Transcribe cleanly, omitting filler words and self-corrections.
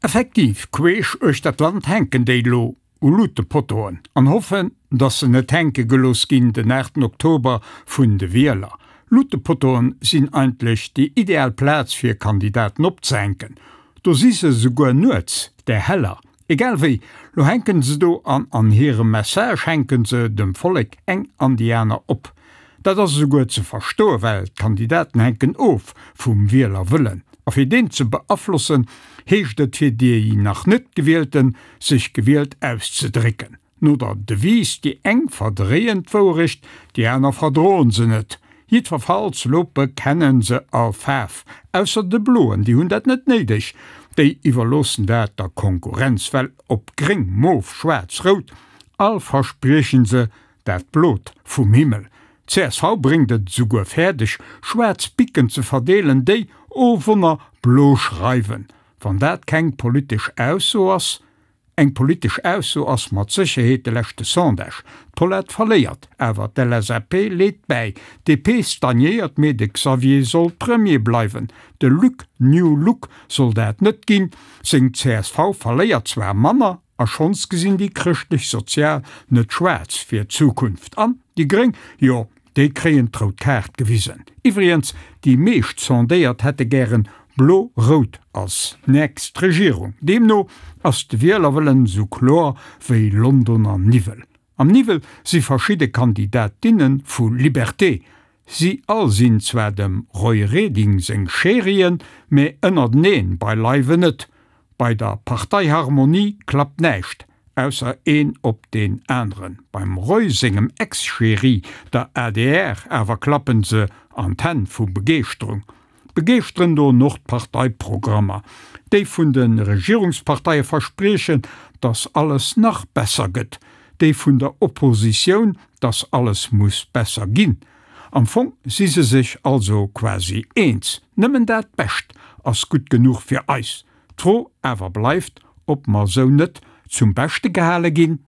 Effektiv, queesch uechter d'Land hänken déi lo u Luutepottoen an hoffen, dass se net hänke gelooss ginn den 8 Oktober vun de Wieler. Luutepottoen sinn eigentlech déi ideal Plaz fir Kandidaten opzehänken. Do si se souguer nuets där heller. Egal wéi, lo hänken se do an an hirem Message hänken se dem Vollek eng an déi aner op. Dat ass esouguer ze verstoen, well d'Kandidaten hänken of vum Wielerwëllen. A fir deen ze beaflossen, heescht et fir déi nach net Gewielten, sech gewielt auszedrécken. No der Devise, déi eng verdréien d'Wouerecht, déi aner verdroen se net. Jiddwerfalls lo bekennen se all Faarf, ausser de Bloen, déi hunn dat net néideg, déi iwwerloossen dat der Konkurrenz, well ob gréng, mof, schwaarz, rout, all verspriechen se dat Blot vum Himmel. Csv bréngt et esouguer fäerdeg, schwaarz Bicken ze verdeelen, déi, oh Wonner, blo schreiwen. Wann dat keng politesch Ausso ass, Eng politesch Ausso ass mat Sécherheet de leschte Sondage. D'Paulette verléiert, awer d'LSAP leet bäi. D'DP stagnéiert, mee de Xavier soll Premier bleiwen. De Luc New Look soll dat net ginn. Seng csv verléiert zwar manner, a schonns gesinn déi Chrëschtlech-Sozial net schwaarz fir d'Zukunft. An déi Gréng, jo, Déi kréien d'rout Kaart gewisen. Iwwregens, déi meescht Sondéiert hätte gären Blo-Rout als nächst Regierung. Deemno ass de Wielerwëllen esou kloer wéi Londoner Niwwel. Am Niwwel si verschidde Kandidatinne vu Liberté. Si all sinn zwar dem Roy Reding seng Chérien, mä ënnerteneen beileiwen net. Bei der Parteiharmonie klappt näischt. Ausser een op deen aneren. Beim Roy sengem Ex-Chéri, der adr, awer klappen se an d'Hänn vu Begeeschterung. Begeeschteren doen och d'Parteiprogrammer, déi vun de Regierungsparteie verspriechen, dass alles nach besser gëtt, déi vun der Oppositioun, dass alles muss besser ginn. Am Fong si se sech also quasi eens, nëmmen dat Bescht ass gutt genuch fir eis. D'Fro awer bleift, ob mer sou net zum Beschte gehale ginn?